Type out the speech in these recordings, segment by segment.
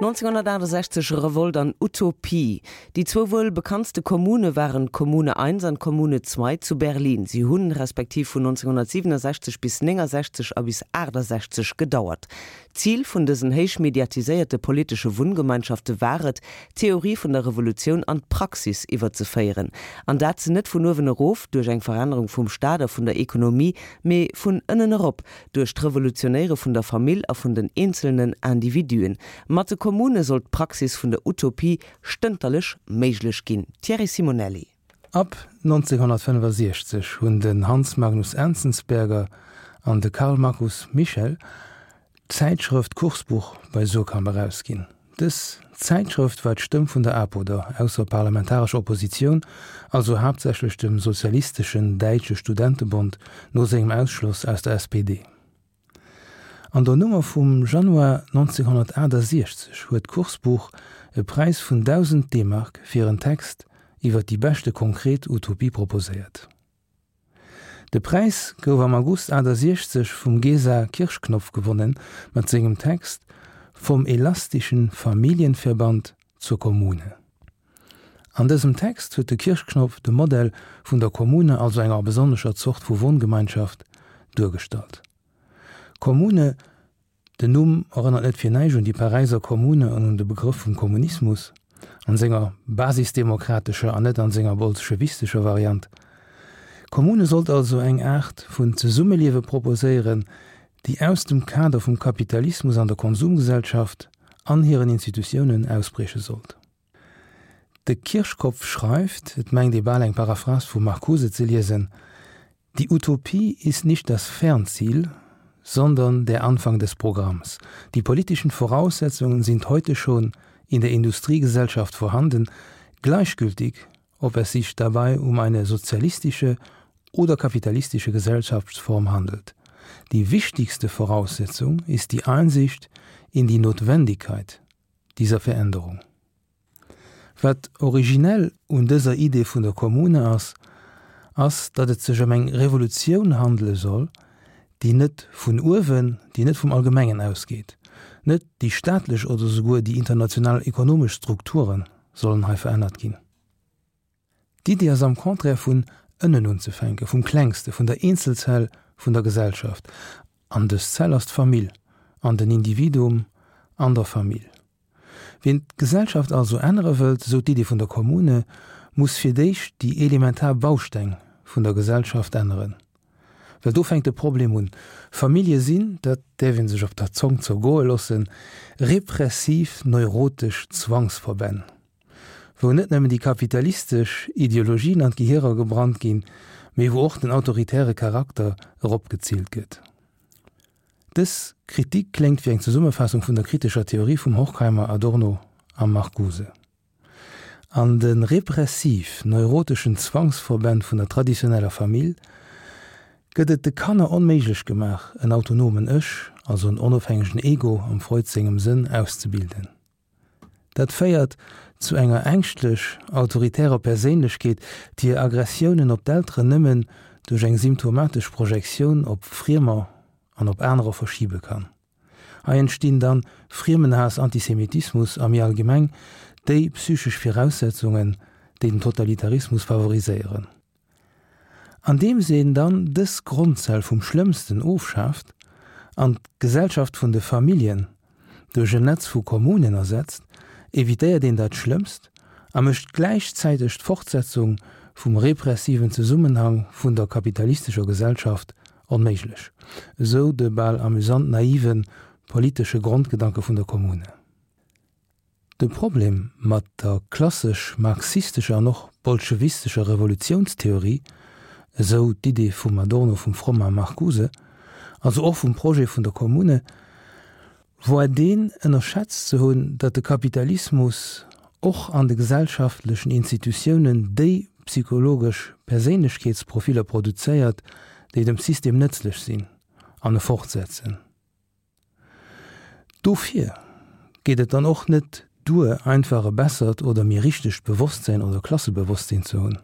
1968, Revolt an Utopie. Déi zwou wuel bekanntste Kommune waren d'Kommune 1 an d'Kommune 2 zu Berlin. Si hunn respektiv vun 1967 bis 69 a bis 68 gedauert. D'Zil vun dësen héich mediatiséierte politesche Wunngemeinschafte war et, d'Theorie vun der Revolutioun an d'Praxis iwwerzeféieren. An dat net vun uewen erof, duerch eng Verännerung vum Staat a vun der Ekonomie, mee vun ënnen erop, duerch d'Revolutionéiere vun der Famill a vun den eenzelnen Individuen. Mat de Kommune sollt d'Praxis vun der Utopie stënterlech méiglech ginn. Thierry Simonelli. Ab 1965 hunn den Hans Magnus Enzensberger an de Karl Markus Michel d'Zäitschrëft Kursbuch bei Suhrkamp erausginn. Dës Zäitschrëft war d'Stëmm vun der APO, der ausserparlamentarescher Oppositioun, also haaptsächlech dem Sozialisteschen Däitsche Studentebond no sengem Ausschloss aus der SPD. An der Nummer vum Januar 1968 huet d'Kursbuch e Präis vun 1.000 D-Mark fir en Text iwwer déi beschte konkret Utopie proposéiert. De Präis gouf am August 68 vum Gesa Kirschknopf gewonnen mat sengem Text Vom elastischen Familienverband zur Kommune. An dësem Text huet de Kirschknopf de Modell vun der Kommune, also enger besonnescher Zort vu Wohngemeinschaft, duergestallt. Kommune Den Numm erënnert net fir näischt un déi Paräiser Kommune an un de Begrëff vum Kommunismus, an senger basisdemokratescher an net an senger bolschewistescher Variant. D'Kommune sollt also eng Aart vun Zesummeliewe proposéieren, déi aus dem Kader vum Kapitalismus an der Konsumgesellschaft an hiren Institutiounen ausbrieche sollt. De Kirchkopf schreift, et mengt ee bal eng Paraphrase vum Marcuse ze liesen, Die Utopie ist nicht das Fernziel, sondern der Anfang des Programms. Die politischen Voraussetzungen sind heute schon in der Industriegesellschaft vorhanden, gleichgültig, ob es sich dabei um eine sozialistische oder kapitalistische Gesellschaftsform handelt. Die wichtigste Voraussetzung ist die Einsicht in die Notwendigkeit dieser Veränderung. Wat originell un dëser Idee vun der Kommune ass, ass, datt et sech ëm eng Revolutioun handele soll, déi net vun uewen, déi net vum Allgemengen ausgeet. Net déi staatlech oder souguer déi international ekonomesch Strukture sollen hei verännert ginn. D'Iddi ass am Contraire vun ënnen unzefänken, vum Klengste, vun der Eenzelzell vun der Gesellschaft. An dës Zell ass d'Famill an den Individuum an der Famill. Wien d'Gesellschaft also ännere wëllt, esou d'Iddi vun der Kommune, muss fir d'éischt déi elementar Bausteng vun der Gesellschaft änneren. Well do fänkt de Problem un. Famillje sinn, dat däerf ee sech op der Zong zergoe loossen, repressiv neurotesch Zwangsverbänn. Wou net nëmmen déi kapitalistesch Ideologien an d'Gehierer gebrannt ginn, mee wou och den autoritäre Charakter eropgezillt gëtt. Dës Kritik kléngt wéi eng Zesummefaassung vun der kritescher Theorie vum Horkheimer, Adorno a Marcuse. An de repressiv-neuroteschen Zwangsverbänn vun der traditioneller Famill gëtt et de Kanner onméiglech gemaach, en autonomen Ech, also en onofhängegen Ego am Freud sengem Sënn, auszebilden. Dat féiert zu enger ängschtlech autoritärer Perséinlechkeet, déi hir Aggressiounen op d'Elteren nëmmen duerch eng symptomatesch Projektioun op Friemer an op anerer verschibe kann. Hei entstinn dann Friemenhaass, Antisemitismus a méi allgemeng déi psychesch Viraussetzungen, déi den Totalitarismus favoriséieren. Andeems een dann dës Grondzell vum Schlëmmsten ofschaaft an d'Gesellschaft vun de Familljen duerch en Netz vu Kommunen ersetzt, evitéiert een dat Schlëmmst a mécht gläichzäiteg d'Fortsetzung vum repressiven Zesummenhang vun der kapitalistescher Gesellschaft onméiglech, esou de bal amüsant naive politesche Grondgedanke vun der Kommune. De Problem mat der klassesch marxistescher an och bolschewistescher Revolutiounstheorie, esou d'Idee vum Adorno, vum Fromm a Marcuse, also och vum Projet vun der Kommune, woar deen, ënnerschätzt ze hunn, datt de Kapitalismus och an de gesellschaftlechen Institutiounen déi psychologesch Perséinlechkeetsprofiller produzéiert, déi dem System nëtzlech sinn an e fortsetzen. Dofir geet et dann och net duer, einfach e bessert oder méi richtegt Bewosstsinn oder Klassebewosstsinn ze hunn.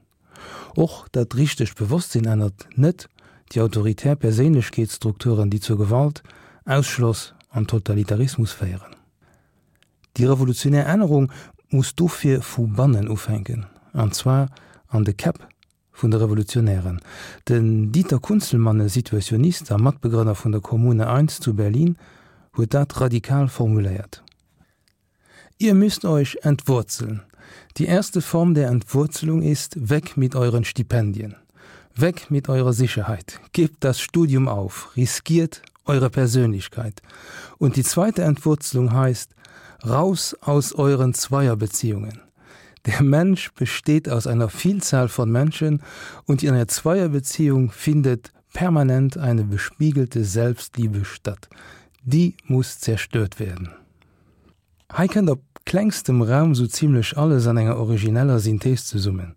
Och dat richtegt Bewosstsinn ännert net déi autoritär Perséinlechkeetsstrukturen, déi zur Gewalt, Ausschloss an Totalitarismus féieren. Déi revolutionär Ännerung muss dofir vu bannen ufänken, an zwar an de Käpp vun de Revolutionären. Den Dieter Kunzelmann, e Situationist a Matbegrënner vun der Kommune I zu Berlin, huet dat radikal formuléiert. Ihr müsst euch entwurzeln. Die erste Form der Entwurzelung ist, weg mit euren Stipendien. Weg mit eurer Sicherheit. Gebt das Studium auf, riskiert eure Persönlichkeit. Und die zweite Entwurzelung heißt, raus aus euren Zweierbeziehungen. Der Mensch besteht aus einer Vielzahl von Menschen und in einer Zweierbeziehung findet permanent eine bespiegelte Selbstliebe statt. Die muss zerstört werden. Hei kënnt op klengstem Raum sou zimlech alles an enger origineller Synthees zesummen,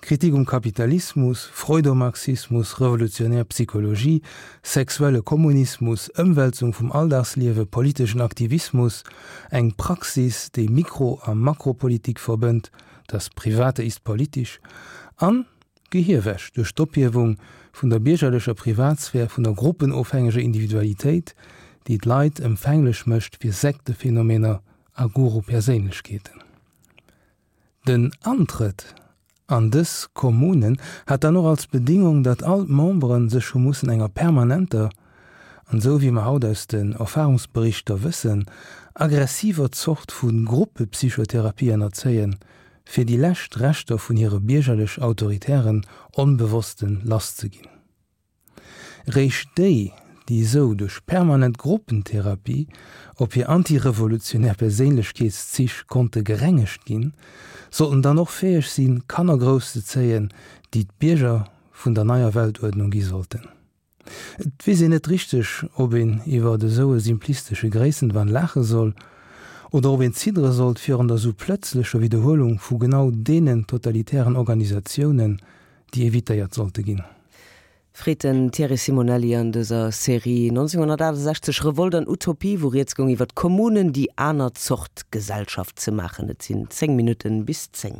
Kritik um Kapitalismus, Freudomarxismus, revolutionär Psychologie, sexuelle Kommunismus, Ëmwälzung vum Alldagsliewe, politeschen Aktivismus, eng Praxis, déi Mikro a Makropolitik verbënnt, das Private ist politisch, an Gehierwäsch duerch d'Ophiewung vun der biergerlecher Privatsphär, vun der gruppenofhängeger Individualitéit, déi d'Leit empfänglech mécht fir Sektephenomener a Guru-Perséinlechkeeten. Den Antrëtt an dës Kommunen hat dann och als Bedingung, datt all d'Membere sech hu mussen enger permanenter, an esou wéi mer haut aus den Erfahrungsberichter wëssen, aggressiver Zort vu Gruppepsychotherapie ënnerzéien, fir déi lescht Reschter vun hire biergerlech-autoritären Onbewossten lasszeginn. Réischt déi, déi esou duerch permanent Gruppentherapie op hir antirevolutionär Perséinlechkeetszich konnte gerengegt ginn, sollten dann och fäeg sinn, Kanner grousszezéien, déi d'Bierger vun der neier Weltuerdnung gi sollten. Et weess een net richteg, ob een iwwer esou e simplistesche Gréissenwahn laache soll oder ob een ziddere sollt virun der sou plëtzlecher Widderhuelung vu genau deenen totalitären Organisatiounen, déi evitéiert sollte ginn. Freet den Thierry Simonelli an dëser Serie 1968 Revolt an Utopie, wou rieds goung iwwer d'Kommunen, déi aner Zort Gesellschaft ze maachen. Et sinn 10 Minutten bis 10.